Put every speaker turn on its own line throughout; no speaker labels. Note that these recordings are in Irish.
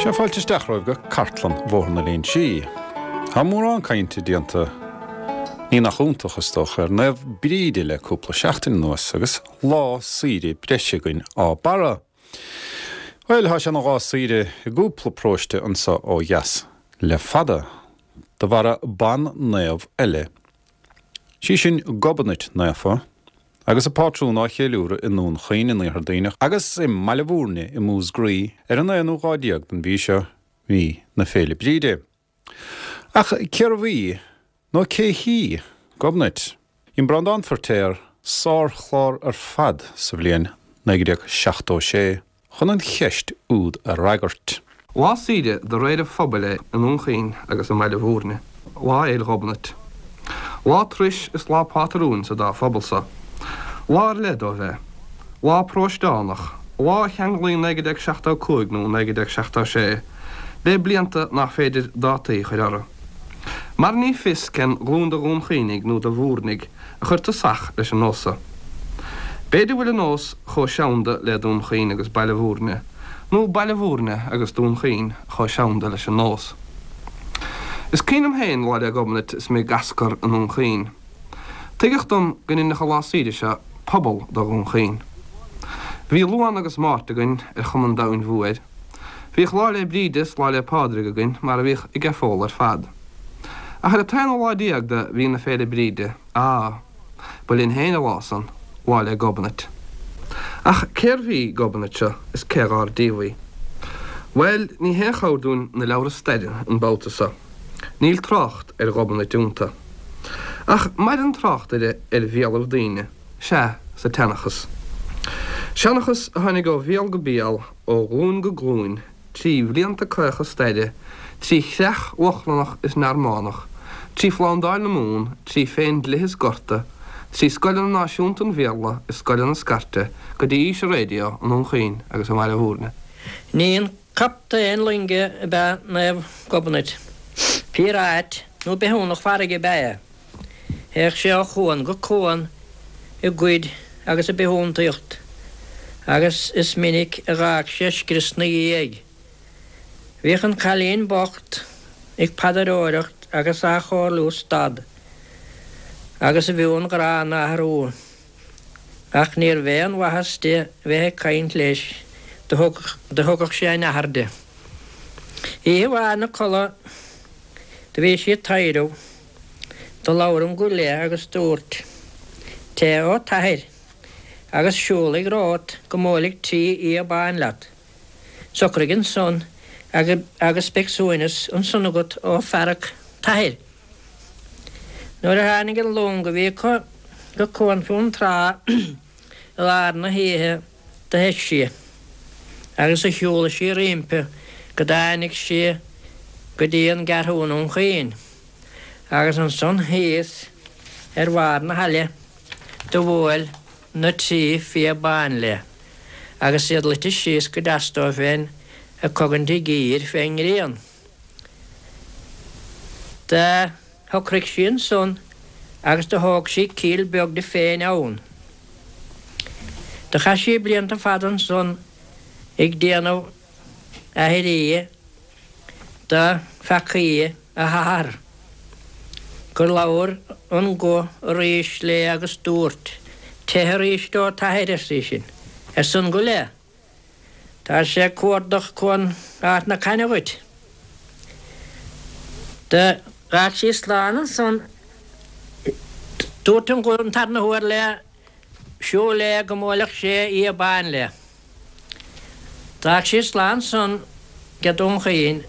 Sea, fáilte isteach romhaibh go Cartlann Bhóthar na Léinsí. Tá mórán cainte déanta, ní nach iontach, is dócha, ar Naomh Bríde le cúpla seachtain anuas agus lá saoire breise againn á barra. Bhuel, tá sé ina lá saoire i gcúpla paróiste anso ó dheas le fada, de bharra ban-naomh eile. Sí sin Gobnait Naofa. Agus a pátrún á cheiliúradh i nDún Chaoin in Iarthar Duibhneach agus i mBaile Bhúirne i Músgraí ar an aonú lá déag den mhí seo, mí na Féile Bríde. Ach cérbh í, nó cé hí, Gobnait? Dhein Breandán Feirtéar sárchlár ar fad sa bhliain 1976. chun an cheist úd a fhreagairt.
Lá saoire de réir an phobail é i nDún Chaoin agus i mBaile Bhúirne, Lá Fhéil Ghobnait. Lá turais is lá pátrúin sa dá phobal so. Lá ar leith dóibh é. Lá paróisteánach, lá a cheanglaíonn 1975 nó 1976 le blianta nach féidir dátaí a chur orthu. Mar ní fios cén ghlúin de Dhún Chaoinigh nó de Bhúirnigh a chuir tosach leis an nós so. B'fhéidir bhfuil an nós chomh seanda le Dún Chaoin agus Baile Bhúirne, nó Baile Bhúirne agus Dún Chaoin chomh seanda leis an nós. Is cuimhin liom féin Lá 'le Gobnait is mé ag Ascar i nDún Chaoin. Tuigeadh dom go ndeinfeadh an lá saoire seo pobal de Dhún Chaoin. Bhí Luan agus Máirt againn ar chuma an domhain mhóir. Bhíodh Lá 'le Bríde is Lá 'le Pádraig againn mar a bhíodh ag an phobal ar fad. Ach ar an t-aonú lá déag de mhí na Féile Bríde, á, ba linn féin an lá san, Lá 'le Gobnait. Ach cérbh í Gobnait seo is cé dhár díobh í? Bhuel, ní haon chabhair dúinn na leabhra staire an babhta so. Níl trácht ar Ghobnait iontu. Ach maireann trácht uirthi ar bhéalaibh daoine, sea, sa tseanchas. Seanchas a tháinig ó bhéal go béal, ó ghlúin go glúin, trí bhlianta caocha staire, trí chreach Lochlannach is Normannach, trí Phlándáil na Mumhan, trí Phéindlithe is Gorta, trí scoileanna náisiúnta an Bhéarla is scoileanna scairte, go dtí aois an raidió i nDún Chaoin
agus i mBaile Bhúirne. Ní aon captaen loinge ab ea Naomh Gobnait. Píoráit nó bithiúnach farraige ab ea é. Théadh sé ó chuan go cuan ag goid agus ag bithiúntaíocht agus is minic a dh'fhág sé scrios 'na dhiaidh. Bhíodh an cailín bocht ag paidreoireacht agus á chomhairliú stad agus a mheon gránna a athrú. Ach níorbh aon mhaitheas di bheith ag caint leis, do thugadh sé a nathair di. Oíche amháin 'na codladh do bhí sí ag taidhreamh. Do labhair an guth léi agus dúirt, Teith ó t'athair, agus siúlaigh romhat go mbuailfidh trí fhia bán leat. Socraigh ansan agus beidh suaimhneas ansan agat ó fhearg t'athair. Nuair a tháinig an long a bhí acu go Cuan Fionntrá i lár na hoíche do theith sí agus do shiúlaigh sí roimpi go dtáinig sí go dtí an gCeathrú i nDún Chaoin. Agus ansan thíos ar bharr na haille do bhuail na trí fia bán léi, agus iad luite síos go deas dóibh féin ag cogaint a gcíor fén ngrian. Do shocraigh sí ansan agus do thóg sí cill beag di féin ann. Do chaith sí blianta fada ansan ag déanamh aithrí do pheacaí a hathar, gur labhair an guth arís léi agus dúirt, Teith arís ó t'athair, arsa í sin, arsa an guth léi. Tá sé ag cuardach Cuan Ard na Caithne dhuit. D'fhág sí slán ansan. Dúirt an guth an tarna huair léi, Siúl léi go mbuailfeadh sé fhia bán léi. D'fhág sí slán ansan ag Dún Chaoin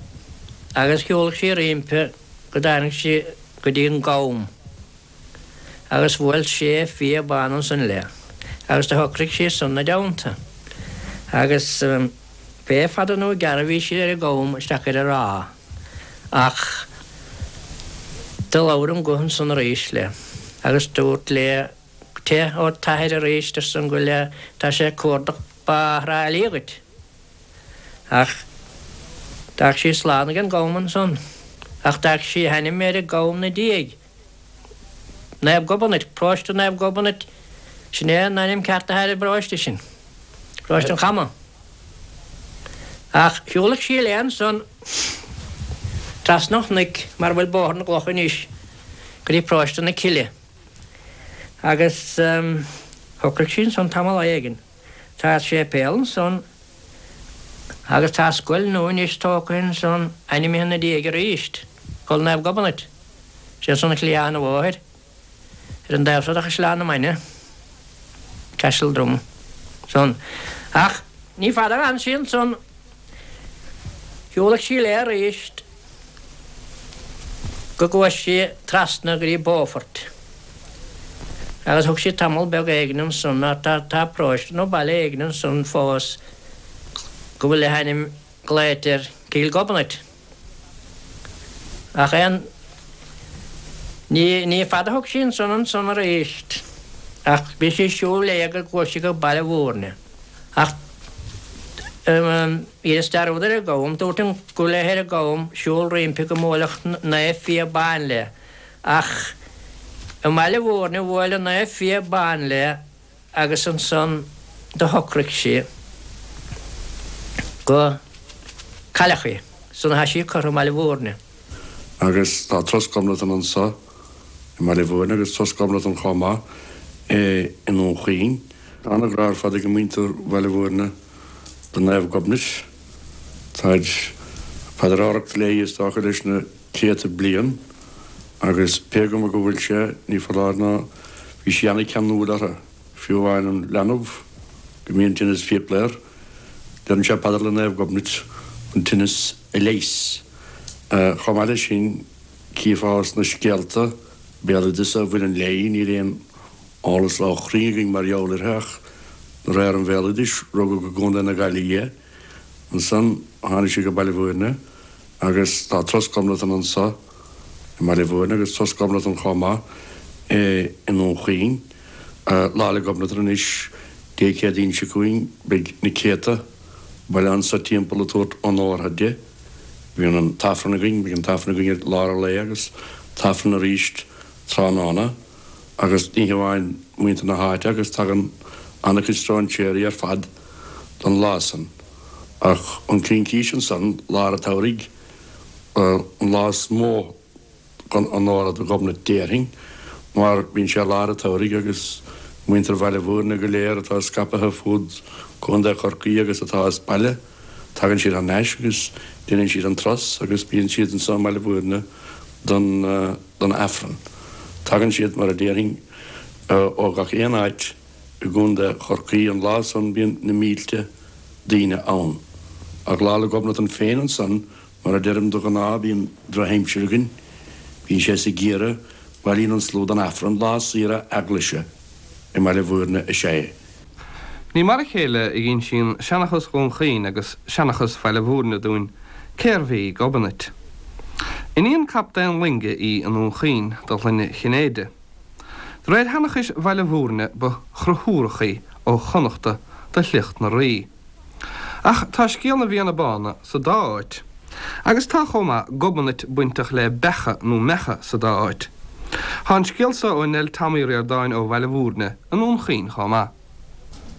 agus shiúlaigh sí roimpi go dtáinig sí go dtí an gCam agus bhuail sé fia bán ansan léi agus do shocraigh sí ansan 'na dteannta agus pé fada nó gearr a bhí sí ar an gCam isteach ar an ráth ach do labhair an guth ansan arís léi agus dúirt léi Teith ó t'athair arís, arsa an guth léi, tá sé ag cuardach Bá Thrá Lí dhuit. Ach d'fhág sí slán ag an gCam ansan. Ach d'fhág sí a hainm ar an gCam 'na diaidh. Naomh Gobnait, Paróiste Naomh Gobnait, sin é an ainm ceart atá ar an bparóiste sin. Paróiste an Chama. Ach shiúladh sí léi ansan trasna an chnoic mar a bhfuil Bóthar na gCloch anois go dtí Paróiste na Cille. Agus shocraigh sí ansan tamall éigin. Tá séipéal ansan agus tá scoil nua anois tógtha ansan ainmnithe ina diaidh arís, Scoil Naomh Gobnait. Sé ansan ar chliathán an bhóthair. Ar an dtaobh seo de Chaisleán na Mainge, Castledrum, san. Ach ní fada a d'fhan sí ansan. Shiúladh sí léi arís go gcuaigh sí trasna go dtí Beaufort. Agus thug sí tamall beag éigin ansan, mar tá tá paróiste nó baile éigin ansan fós go bhfuil a hainm glaoite air Cill Ghobnait. Ach aon ní, ní fada a thug sí ansan ansan arís, ach bhí sí ag siúl léi go gcuaigh sí go Baile Mhúirne. Ach dheineas dearúd ar an gCam, dúirt an go léith ar an gCam siúl roimpi go mbuailfeadh Naomh Fia Ban léi, ach i mBaile Mhúirne bhuail an Naomh Fia Ban léi agus ansan do shocraigh sí go cailleadh í. San atá sí curtha i mBaile Mhúirne.
Agus tá Turas Ghobnatan anso i mBaile Mhúirne agus Turas Ghobnatan chomh maith i nDún Chaoin. Tá ana-ghrá ar fad ag muintir Bhaile Mhúirne do Naomh Gobnait. Táid ag paidreoireacht léi is dócha leis na céadta bliain agus pé cuma go bhfuil sé, ní foláir nó bhí sí ana-cheanúil orthu, fiú amháin an leanbh go mbíonn tinneas fiacla air, deireann sé paidir le Naomh Gobnait an tinneas a leigheas. Chomh maith leis sin, chífeá sna scéalta béaloideasa a bhaineann léi, níl aon eolas ró-chruinn againn mar gheall uirthi ach de réir an bhéaloidis, rugadh i gContae na Gaillimhe í. Ansan tháinig sí go Baile Mhúirne. Agus tá Turas Ghobnatan anso i mBaile Mhúirne agus Turas Ghobnatan chomh maith i nDún Chaoin. Lá 'le Gobnatan anois, Dé Céadaoin seo chugainn, beidh na céadta bailithe anso timpeall ag tabhairt onórtha di. Bíonn an t-Aifreann againn, beidh an t-Aifreann againn i lár an lae agus t-Aifreann arís tráthnóna. Agus ní hamháin muintir na háite agus tagann an-chuid stróinséirí ar fad don lá san. Ach an Chincís ansan, lár an tsamhraidh, an lá is mó chun onóra do Ghobnait déarfainn, mar bíonn sé lár an tsamhraidh agus muintir Bhaile Mhúirne go léir atá scaipthe fud Contae Chorcaí agus atá as baile, tagann siad thar n-ais agus déanann siad an turas agus bíonn siad anso i mBaile Mhúirne don don Aifreann. Tagann siad, mar a déarfainn, ó gach aon áit i gContae Chorcaí. An lá san bíonn na mílte daoine ann. Ach Lá 'le Gobnatan féin ansan, mar a deirim, de ghnáth bíonn drochaimsir againn, bíonn sé sa gheimhreadh, bailíonn an slua don Aifreann, lá saoire eaglaise i mBaile Mhúirne is ea é.
Ní mar a chéile a dh'insíonn seanchas Dhún Chaoin agus seanchas Bhaile Mhúirne dúinn cérbh í Gobnait. Iníon captaen loinge í i nDún Chaoin de shloinne Chinnéide. De réir sheanchais Bhaile Mhúirne ba Chonchúrach í ó Chonnachta de shliocht na Rí. Ach tá scéal na bhFianna Bána sa dá áit. Agus tá chomh maith Gobnait bainteach le beacha nó meacha sa dá áit. Tá an scéal so ó Nell Tom Uí Ríordáin ó Bhaile Mhúirne i nDún Chaoin chomh maith.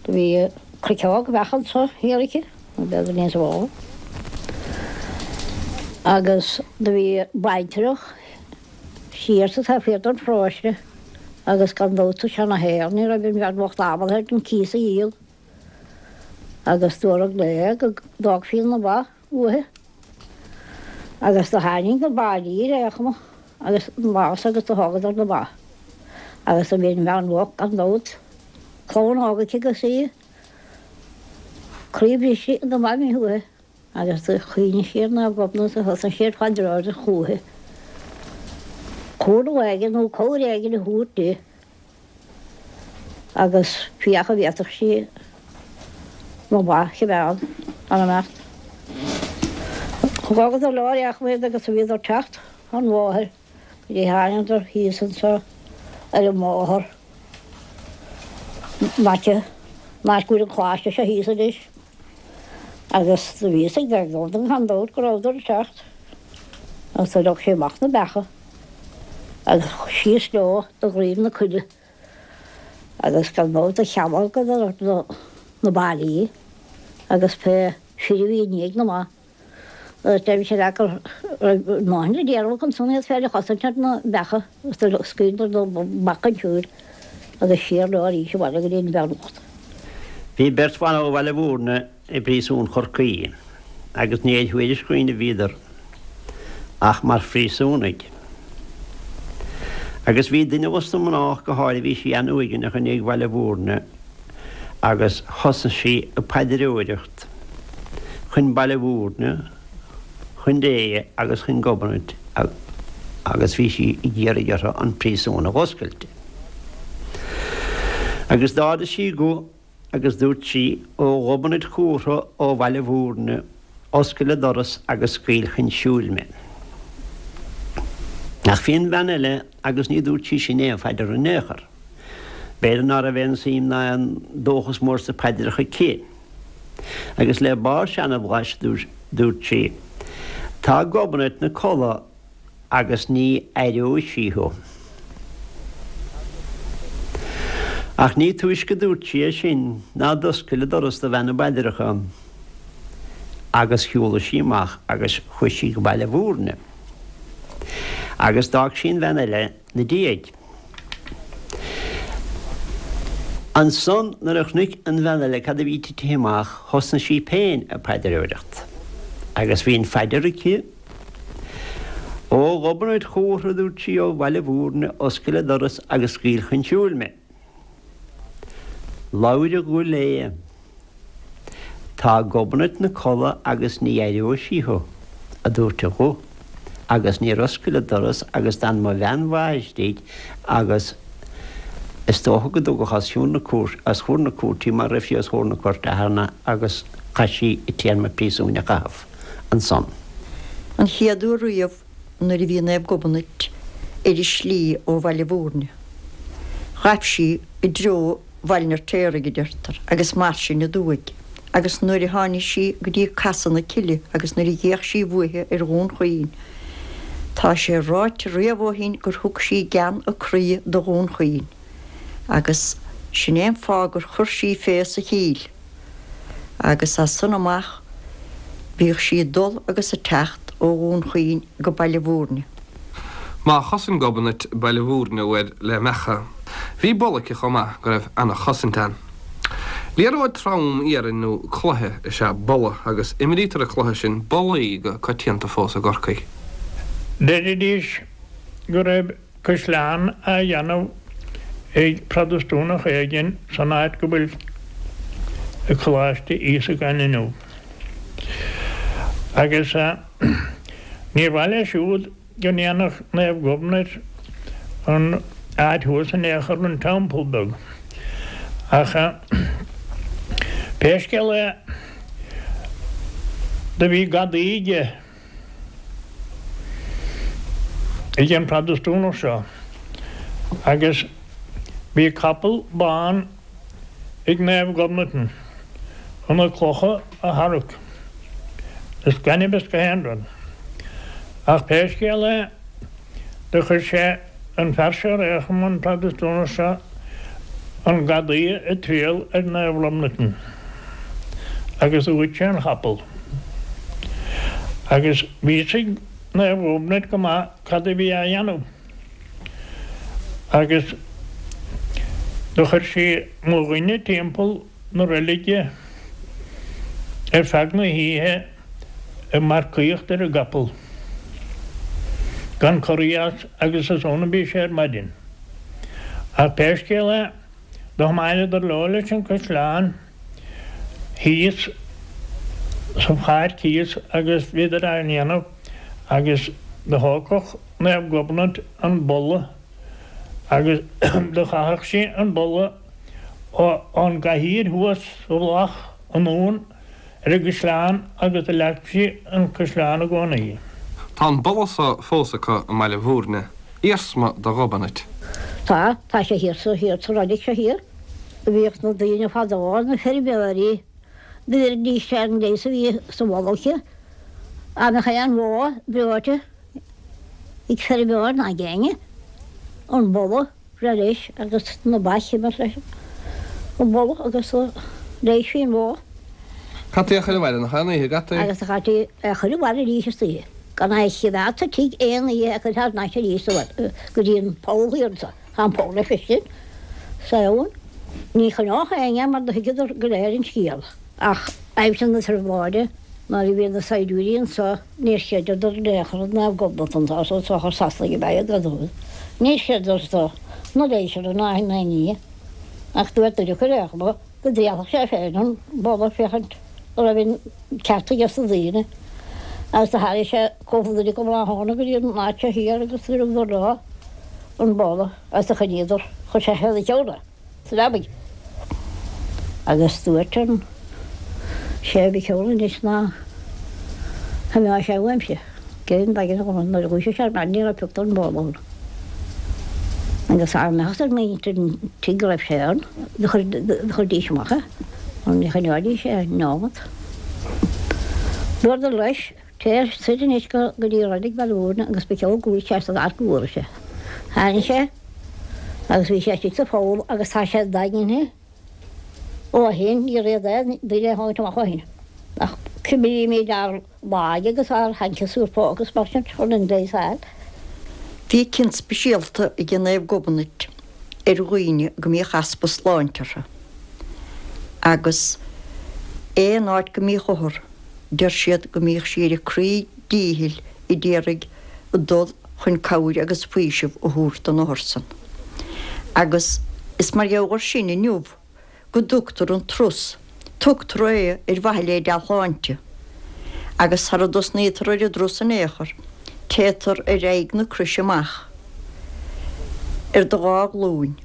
Do bhí cruiceog bheach anso thiar aici, nó b'fhéidir níos mó, agus do bhí baintreach siar sa taobh thiar den pharóiste agus gan dabht sa seana-shaol ní raibh an bhean bhocht ábalta ar an cíos a dhíol agus dúradh léi go dtógfaí na ba uaithi agus do tháinig na baillí ar aon chuma agus an lá san agus do thógadar na ba agus do bhí an bhean bhocht gan dabht clann óg aici agus í croí briste na ba imithe uaithi. Agus do chuimhnigh sí ar Naomh Gobnait a thosaigh sí ag paidreoireacht chúithi. Cúnamh éigin nó cabhair éigin a thabhairt di agus féach an bhféadfadh sí na ba a choimeád gan imeacht. Thógadar leo ar aon chuma iad agus bhíodar ag teacht an bhóthair go dtí thángadar thíos anso ar an mbóthar in aice an áit go bhfuil an coláiste seo thíos anois. Agus do bhí fhios ag Gobnait gan dabht go rabhadar ag teacht agus do leag sí amach na beacha agus síos leo do dhroim na coille agus gan dabht do chealgadar na baillí agus pé. fir a bhí i ndiaidh na mba. Agus deirimse leat go raibh a ndóthain le déanamh acu ansan iad féin a chosaint ar na beacha agus do scaoileadar na beacha chun siúil agus siar leo arís abhaile go dtí an bhean bhocht.
Bhí beirt bhan ó Bhaile Mhúirne i bpríosún Chorcaí agus ní ar thuairisc dhaoine a bhíodar ach mar phríosúnaigh. Agus bhí duine dos na mná ach go háirithe, bhí sí an-uaigneach i ndiaidh Bhaile Mhúirne agus thosaigh sí ag paidreoireacht chun Baile Mhúirne, chun Dé agus chun Gobnait agus bhí sí ag iarraidh orthu an príosún a dh'oscailt di. Agus d'ardaigh sí a guth agus dúirt sí, Ó Ghobnait Chumhra ó Bhaile Mhúirne, oscail an doras agus scaoil chun siúil mé. Ach bhí an bhean eile agus ní dúirt sí sin aon phaidir in aon chor. B'fhéidir ná raibh aon suim ná aon dóchas mór sna paidreacha aici. Agus le barr seanbhlais dúirt sí, Tá Gobnait 'na codladh agus ní aireoidh sí thú. Ach ní túisce dúirt sí é sin ná d'oscail an doras do bhean na bpaidreacha agus shiúlaigh sí amach agus chuaigh sí go Baile Mhúirne. Agus d'fhág sí an bhean eile 'na diaidh. Ansan nuair a chonaic an bhean eile cad a bhí titithe amach thosnaigh sí féin ag paidreoireacht. Agus bhí an phaidir aici, Ó Ghobnait Chumhra, a dúirt sí, ó Bhaile Mhúirne, oscail an doras agus scaoil chun siúil mé. Labhair a guth léi. Tá Gobnait 'na codladh agus ní aireoidh sí thú, a dúirt a guth, agus níor oscail an doras agus d'fhan mo bhean mhaith istigh agus is dócha go dtugadh os cionn na cúirte, os chomhair na cúirte í mar raibh sí os chomhair na cúirte cheana agus chaith sí a téarma príosúin a chaitheamh ansan.
An chéad uair riamh nuair a bhí Naomh Gobnait ar a slí ó Bhaile Mhúirne, ghaibh sí i dtreo Bhaile an Fheirtéaraigh, a deirtear, agus mar sin aduaidh, agus nuair a tháinig sí go dtí Casadh na Cille agus nuair a d'fhéach sí uaithi ar Dhún Chaoin, tá sé ráite riamh ó shin gur thug sí gean a croí do Dhún Chaoin, agus sin é an fáth gur chuir sí fé sa chill. Agus as san amach bhíodh sí ag dul agus ag teacht ó Dhún Chaoin go Baile Mhúirne.
Má chosain Gobnait Baile Mhúirne uair le mbeacha, bhí bolla aici chomh maith go raibh ana-chosaint ann. Liathróid trom iarainn nó cloiche is ea bolla agus imrítear an cluiche sin bollaí go coitianta fós i gCorcaigh.
Deiridís go raibh caisleán á dhéanamh ag Protastúnach éigin san áit go bhfuil Coláiste Íosagáin inniu. Agus níor mhaith leis siúd go ndéanfadh Naomh Gobnait an áit thuas in aon chor, an teampall beag. Ach pé scéal é, do bhí gadaí aige. ag an Protastúnach seo agus bhí capall bán ag Naomh Gobnatan chun na clocha a tharrac is gainimh is gach aon rud. Ach pé scéal é do chuir sé an fear seo ar aon chuma, an Protastúnach seo, an gadaí ag triall ar Naomh Gobnatan agus ghoid sé an chapall. Agus bhí fhios ag Naomh Gobnait go maith cad a bhí á dhéanamh agus do chuir sí mo dhuine timpeall na reilige ar feadh na hoíche ag marcaíocht ar an gcapall gan corraí as agus is ann a bhí sé ar maidin. Ach pé scéal é, do thiomáineadar leo leis an caisleán thíos sa pháirc thíos agus bhíodar á ndéanamh agus do thógfadh Naomh Gobnait an bolla agus do chaitheadh sí an bolla ón gcathaoir thuas sa mhullach anonn ar an gcaisleán agus do leag sí an caisleán i gcónaí.
Tá an bolla so fós acu i mBaile Mhúirne, iarsma de Ghobnait.
Tá, tá sé thiar sa, thiar sa reilig seo thiar. Bhíodh na daoine fadó, na feirmeoirí, do bheiridís ar an leigheas a bhí sa bholla aici. Dá mbeadh aon bhó breoite ag feirmeoir ná ag éinne, an bolla breith leis agus na baic a imirt leis an bolla agus leighisfí an bhó.
Caití é a chur abhaile nach ea an oíche, gcaití?
Agus do chaití é a chur abhaile arís istoíche, gan é a chimeád sa tigh aon oíche é a chur thar n-ais arís sa bhaile go dtí an poll thiar anso. Tá an poll le feiscint sa abhainn. Ní choinneodh éinne é mar do thuigeadar go léir an scéal. Ach aimsir na trioblóide nuair a bhí na saighdiúirí anso níor chreideadar in aon chor i Naomh Gobnait anso so is dócha Sasanaigh ab ea iad gan dabht. Níor chreideadar so na léiseanna ná aon ní. Ach dúirt duine acu ar aon chuma go dtrialfadh sé féin an boladh féachaint an raibh an ceart aige sna daoine. Agus do tharraing sé cúpla duine acu tráthnóna go dtí an áit seo thiar agus do thugadar leo an boladh agus do choinníodar, chuir sé fé na ceann é sa leabaidh. Agus dúirt an sé mhic Eoin anois ná himeodh sé uaimse. Cén daighean a dhóthain nuair a dhúisigh sé ar maidin ní raibh pioc den bholadh ann. Agus dá mbeadh ar mhuintir an tigh go raibh sé ann, do chuirdís amach é, mar ní choinneoidís é neomat. Dúradar leis, Téir soir anois go dtí Reilig Bhaile Mhúirne agus ba cheol go bhfuil sé san áit go bhfuair sé. Tháinig sé agus bhí sé istigh sa pholl agus tá sé daingnithe. Ó shin, níor fhéad aon duine a thabhairt amach ó shin, ach cuimrímid ár laige agus ár hancaisúr póca agus mar sin chun an leigheas a fháil.
Bhí cion speisialta ag Naomh Gobnait ar dhaoine go mbíodh easpa sláinte orthu, agus aon áit go mbíodh othar, deir siad go mbíodh sí ar a croí díchill a d'iarraidh dul chun cabhair agus faoiseamh a thabhairt don othar san. Agus is mar gheall air sin inniu go dtugtar an turas, tugtar é ar mhaithe le dea-shláinte. Agus sara dtosnaítear ar an dturas in aon chor, téitear ar aghaidh na croise amach ar do dhá ghlúin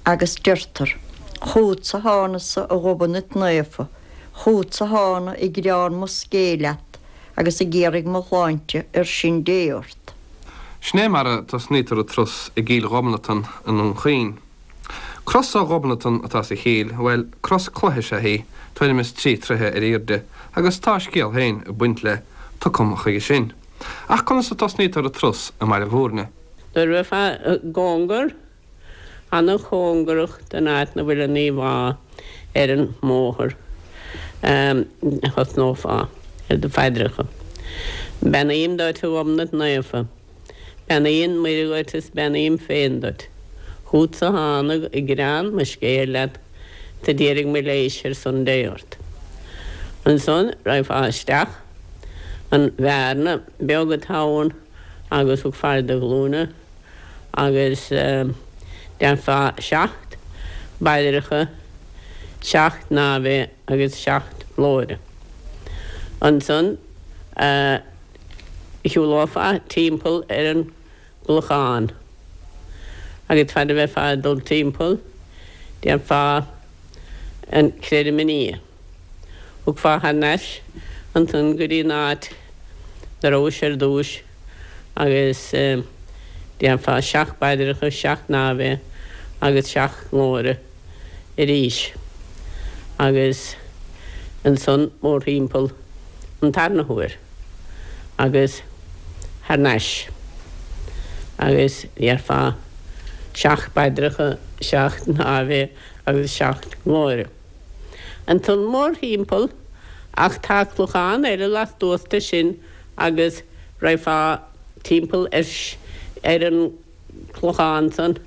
agus deirtear, Chugatsa thánasa a Ghobnait Naofa, chugatsa thána ag gearán mo scéil leat agus ag iarraidh mo shláinte ar sin Dé ort.
Sin é mar a tosnaítear an turas i gCill Ghobnatan i nDún Chaoin. Cros ó Ghobnatan atá sa chill, bhuel, cros cloiche is ea í, tuairim is 3 troithe ar aoirde, agus tá a scéal féin ag baint lei, tiocfam chuige sin. Ach conas a tosnaítear an turas i mBaile Mhúirne?
Nuair a bheifeá i gcóngar ana-chóngarach don áit 'na bhfuil an íomhá ar an mbóthar, thosnófá ar do phaidreacha. Beannaím duit, a Ghobnait Naofa. Beannaíonn Muire dhuit is beannaím féin duit. Chútsa thánag ag gearán mo scéil leat 's a d'iarraidh mo leighis ar son Dé ort. Ansan raghfá isteach an bhearna beag atá ann agus thiocfá ar do ghlúine agus déarfá seacht bpaidreacha, seacht nAve agus seacht nGlóire. Ansan shiúlófá timpeall ar an gclochán agus fad a bheifeá ag dul timpeall déarfá an Creidim i nDia. Thiocfá thar n-ais ansan go dtí an áit 'na rabhais ar dtúis agus déarfá seacht bpaidreacha, seacht nAve agus seacht nGlóire arís agus ansan mórthimpeall an tarna huair agus thar n-ais agus déarfá seacht bpaidreacha, seacht nAve agus seacht nGlóire. Ansan mórthimpeall ach tá clochán eile lastuas de sin agus raghfá timpeall ar an gclochán san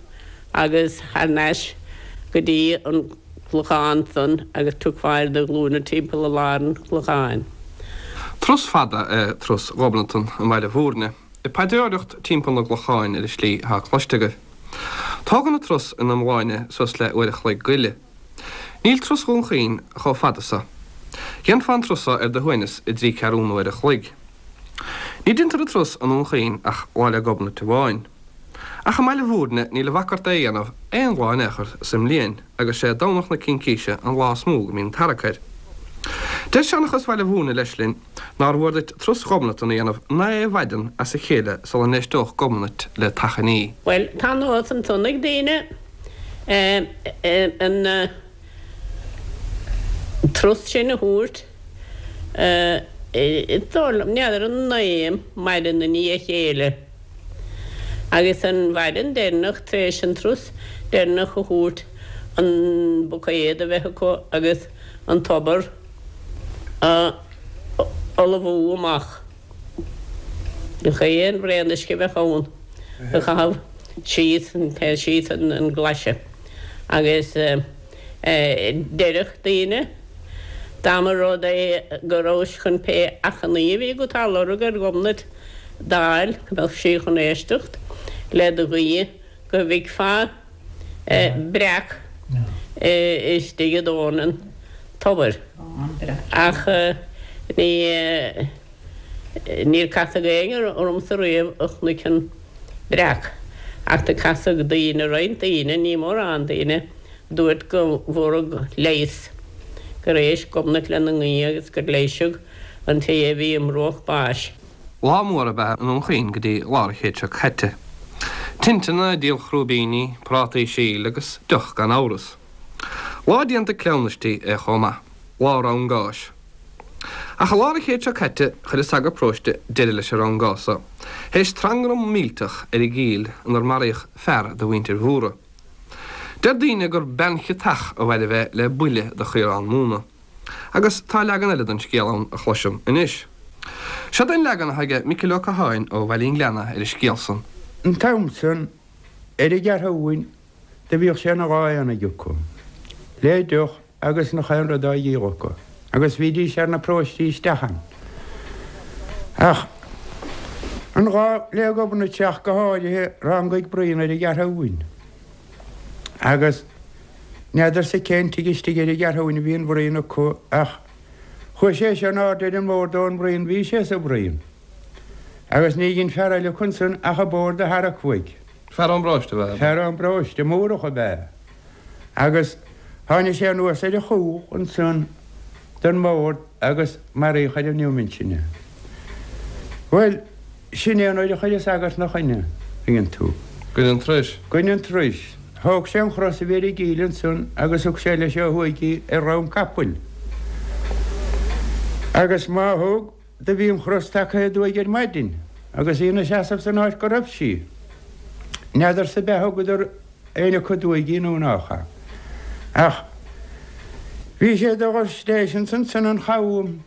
agus thar n-ais go dtí an clochán san agus tiocfá ar do ghlúine timpeall i lár an chlocháin.
Turas fada é turas Ghobnatan i mBaile Mhúirne. Ag paidreoireacht timpeall na gclochán ar an slí atá cloiste agaibh. Tógann an turas ina iomláine suas le uair a chloig go leith. Níl turas Dhún Chaoin chomh fada so. Dhéanfá an turas so ar do shuaimhneas i dtrí ceathrúna uair a chloig. Ní deintear an turas i nDún Chaoin ach Lá 'le Gobnait amháin. Ach i mBaile Mhúirne níl a bhac ort é a dhéanamh aon lá in aon chor sa mbliain agus sé Domhnach na Cincíse an lá is mó go mbíonn tarrac air. Deir seanchas Bhaile Mhúirne leis linn nár mhór duit turas Ghobnatan a dhéanamh naoi mhaidean as a chéile sula n-éisteodh Gobnait le t'achainí.
Bhuel, tá nós ansan ag daoine an turas sin a thabhairt, is dóigh liom, n'fheadar an naoi maidin i ndiaidh a chéile agus an mhaidin deireanach tar éis an turas deireanach a thabhairt an buicéad a bheith acu agus an tobar. A fholmhú amach. Gach aon bhraon uisce a bheadh ann a chaitheamh síos síos an glaise agus deireadh daoine dá mba rud é go rabhais chun pé achainí a bhí agat á lorg ar Ghobnait d'fháil go mbeadh sí chun éisteacht le do ghuí go bhfeicfeá breac istigh i dtóin an tobair. Ach ní, níor casadh éinne ormsa riamh a chonaic an breac. Ach do casadh daoine, roinnt daoine, ní mórán daoine, dúirt go bhfuaradh leigheas, gur éist Gobnait lena nguí agus gur leighiseadh an té a bhí i mbruach báis.
Lá mór ab ea i nDún Chaoin go dtí lár an chéid seo caite. Tinteanna, díol chrúibíní, prátaí síl agus deoch gan amhras. Lá déanta cleamhnaistí é chomh maith. Lá rangáis. Ach i lár an chéid seo caite chuir an sagart paróiste deireadh leis an rangás so, théis trangram millteach ar an gCill inar maraíodh fear de mhuintir Mhórdha. Deir daoine gur bean chiotach a mhairbh é le buille de chaorán móna. Agus tá leagan eile den scéal ann a chloisim anois. Seod é an leagan atá aige Micil Ó Catháin ó Bhaile an Ghleanna ar an scéal san.
An t-am san, ar an gCeathrúin, do bhíodh sé ina lá aonaigh acu, le deoch agus nach aon rud á dhíol acu, agus bhídís ar na paróistí isteach ann. Ach an lá 'le Gobnait ach go háirithe, rangaigh bruíon ar an gCeathrúin. Agus n'fheadarsa cén tigh istigh ar an gCeathrúin a bhí an bhruíon acu ach chuaigh sé seo in airde ar an mbord ón mbruíon, bhí sé sa bhruíon. Agus ní dhein fear eile acu ansan ach an bord a tharrac uaidh.
Fear ón bparóiste ab ea?
Fear ón bparóiste, Múrach ab ea. Agus tháinig sé anuas ar a chúl ansan den mbord agus maraíodh ar an neomant sin é. Bhuel, sin é an uair a chuir an sagart 'na choinne, tuigeann tú.
Goin an turais.
Goin an turais. Thóg sé an chros a bhí ar an gcill ansan agus thug sé leis ó thuaidh í ar dhroim capaill. Agus má thug, do bhí an chros tagtha aduaidh ar maidin agus í ina seasamh san áit go raibh sí. N'fheadarsa ab ea thugadar éinne acu aduaidh í nó nách ea. Ach bhí sé do dhul sléisean ansan an chabhán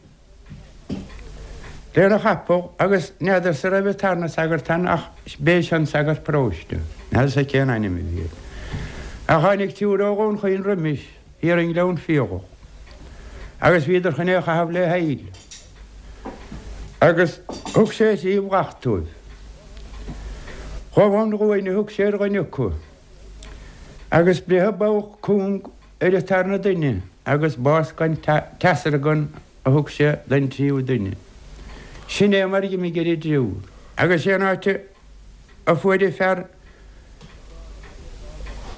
lena chapall agus n'fheadarsa raibh an tarna sagart ann ach b'é seo an sagart paróiste. N'fheadarsa cén ainm a bhí air. Ach tháinig triúr ó Dhún Chaoin roimis, thiar i nGleann Fiadhach, agus bhíodar chun é a chaitheamh le haill. Agus thug sé thrí bhleacht dóibh. Gobán guain a thug sé ar dhuine acu. Agus breitheadh bogha cúng ar an tarna duine agus bás gan teasargan a thug sé don tríú duine. Sin é mar a dh'imigh ar an dtriúr. Agus sé an áit a fuair an fear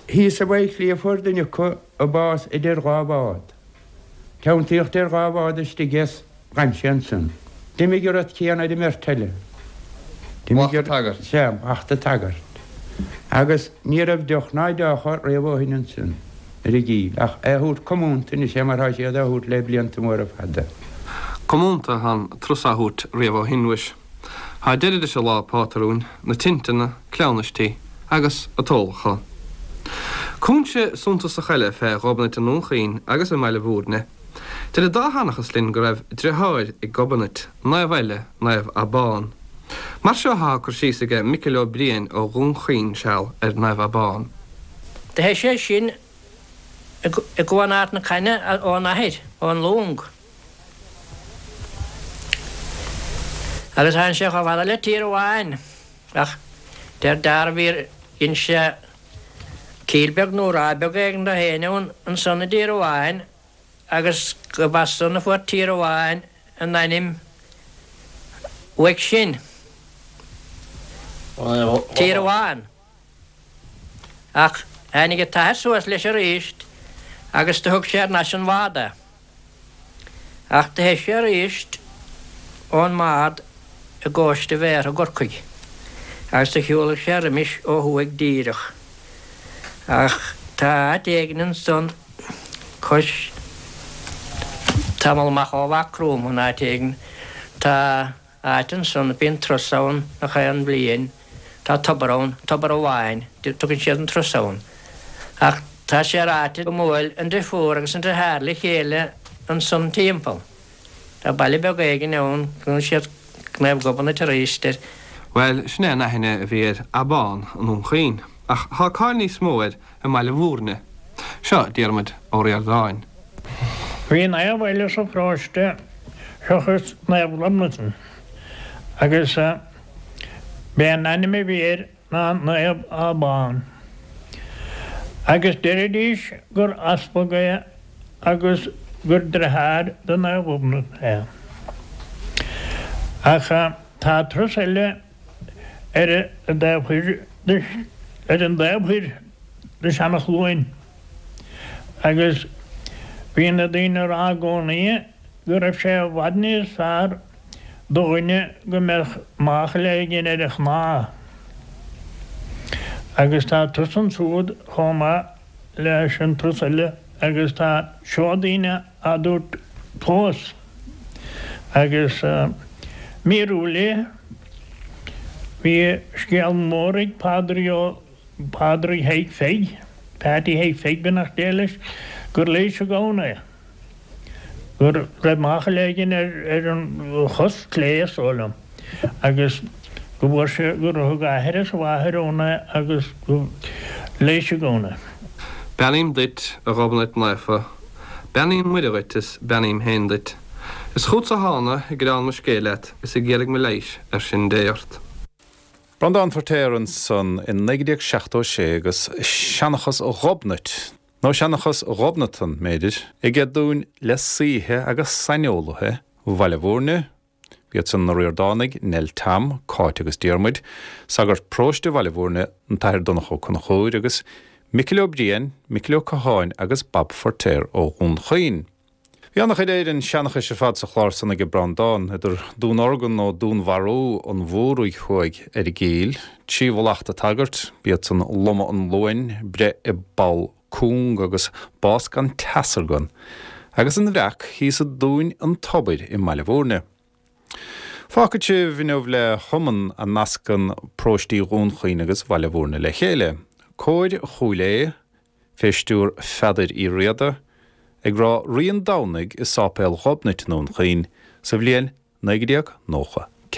thíos i bhFaichillí a fuair duine acu a bás idir dhá bhád. Teanntaíodh idir dhá bhád istigh é 's dh'fhan sé ansan. D'imigh an rud céanna ar an mbeirt eile.
D'imigh an tagairt.
Sea, mhacht an tsagairt. Agus ní raibh deoch ná deocha riamh ó shin ansan ar an gCill, ach é a thabhairt comúnta anois é mar thá siad á thabhairt le blianta móra fada.
Comúnta atá an turas á thabhairt riamh ó shin, mhuis. Tá deireadh leis an lá pátrúin, na tinteanna, cleamhnaistí agus an t-ólachán. Cúinse suntasach eile fé Ghobnait i nDún Chaoin agus i mBaile Bhúirne. Deir an dá sheanchas linn go raibh driotháir ag Gobnait, naomh eile, Naomh Abán. Mar seo athá cur síos aige Micil Ó Briain ó Dhún Chaoin seal ar Naomh Abán.
Do theith sé sin i gCuan Ard na Caithne ón athair, ón long. Agus tháinig sé chomh fada le Tír Amháin, ach deir dearbh dhein sé cill beag nó ráth beag éigin do féin ann ansan i dTír Amháin agus gurb as san a fuair Tír Amháin a n-ainm uaidh sin. Tír Amháin. Ach tháinig an t-athair suas leis aríst agus do thug sé thar n-ais an bhád é. Ach do theith sé aríst ón mbád i gcóiste Bhéartha i gCorcaigh agus do shiúlaigh sé roimis ó thuaidh díreach. Ach tá áit éigin ansan cois tamall amach ó Mhaigh Chromtha in áit éigin tá áit ansan bíonn turas ann nach aon bhliain. Tá tobar ann, Tobar Abháin, tugann siad an turas ann. Ach tá sé ráite go mbuail an drifiúr agus an driotháir le chéile ansan timpeall. Tá baile beag éigin ann, glaonn siad Naomh Gobnait arís air.
Bhuel, sin é an aithne a bhí ar Abán i nDún Chaoin, ach tá cáil níos mó air i mBaile Bhúirne. Seo Diarmuid Ó Ríordáin.
Bhí naomh eile sa pharóiste seachas Naomh Gobnatan agus b'é an ainm a bhí air ná Naomh Abán. Agus deiridís gur easpag é agus gur driotháir do Naomh Gobnait é. Ach tá turas eile ar an dtaobh thoir de ar an dtaobh thoir de Seanachluain agus bhí na daoine a rá i gcónaí go raibh sé i bhfad níos fearr do dhuine go mbeadh máchail éigin ar a chnámh. Agus tá turas ansúd chomh maith leis an turas eile agus tá seodaí á dtabhairt fós. Agus míorúil é, bhí scéal mór ag Pádraig Ó, Pádraig Thaidhg Pheig, Peaití Thaidhg Pheig beannacht Dé leis, gur leigheas an gamhna é. Go raibh máchail éigin ar an chos clé is dóigh liom agus go bhfuair sé, gur thug a athair is a mháthair ann é agus go leigheas an gamhna é.
Beannaím duit, a Ghobnait Naofa. Beannaíonn Muire dhuit is beannaím féin duit. Is chútsa thána ag gearán mo scéil leat is ag iarraidh mo leighis ar sin Dé ort.
Breandán Feirtéar ansan i 1976 agus Seanchas Ghobnait, nó Seanchas Ghobnatan, mb'fhéidir, aige dúinn le saoithe agus saineolaithe Bhaile Bhúirne, B'iad san na Ríordánaigh, Nell Tom, Cáit agus Diarmuid, sagart paróiste Bhaile Bhúirne, an tAthair Donncha Ó Conchúir, agus Micil Ó Briain, Micil Ó Catháin agus Bob Feirtéar ó Dhún Chaoin. Bhí an-chuid Éireann seanchais ar fad sa chlár san aige Breandán, idir dúnorgain nó dúnmharú an Mhóraigh thuaidh ar an gCill, 3 mhallacht tsagairt, b'iad san lomadh an Luain, breith i bpoll cúng agus bás gan teasargan, agus an Bhreac thíos i dTóin an Tobair i mBaile Bhúirne. Fágfaidh sibh inniu le hiomann a nascann paróistí Dhún Chaoin agus Bhaile Bhúirne le chéile, Cór Chúil Aodha, fé stiúr Pheadair Uí Riada, ag rá Rí an Domhnaigh i Sáipéal Ghobnait i nDún Chaoin sa bhliain 1994.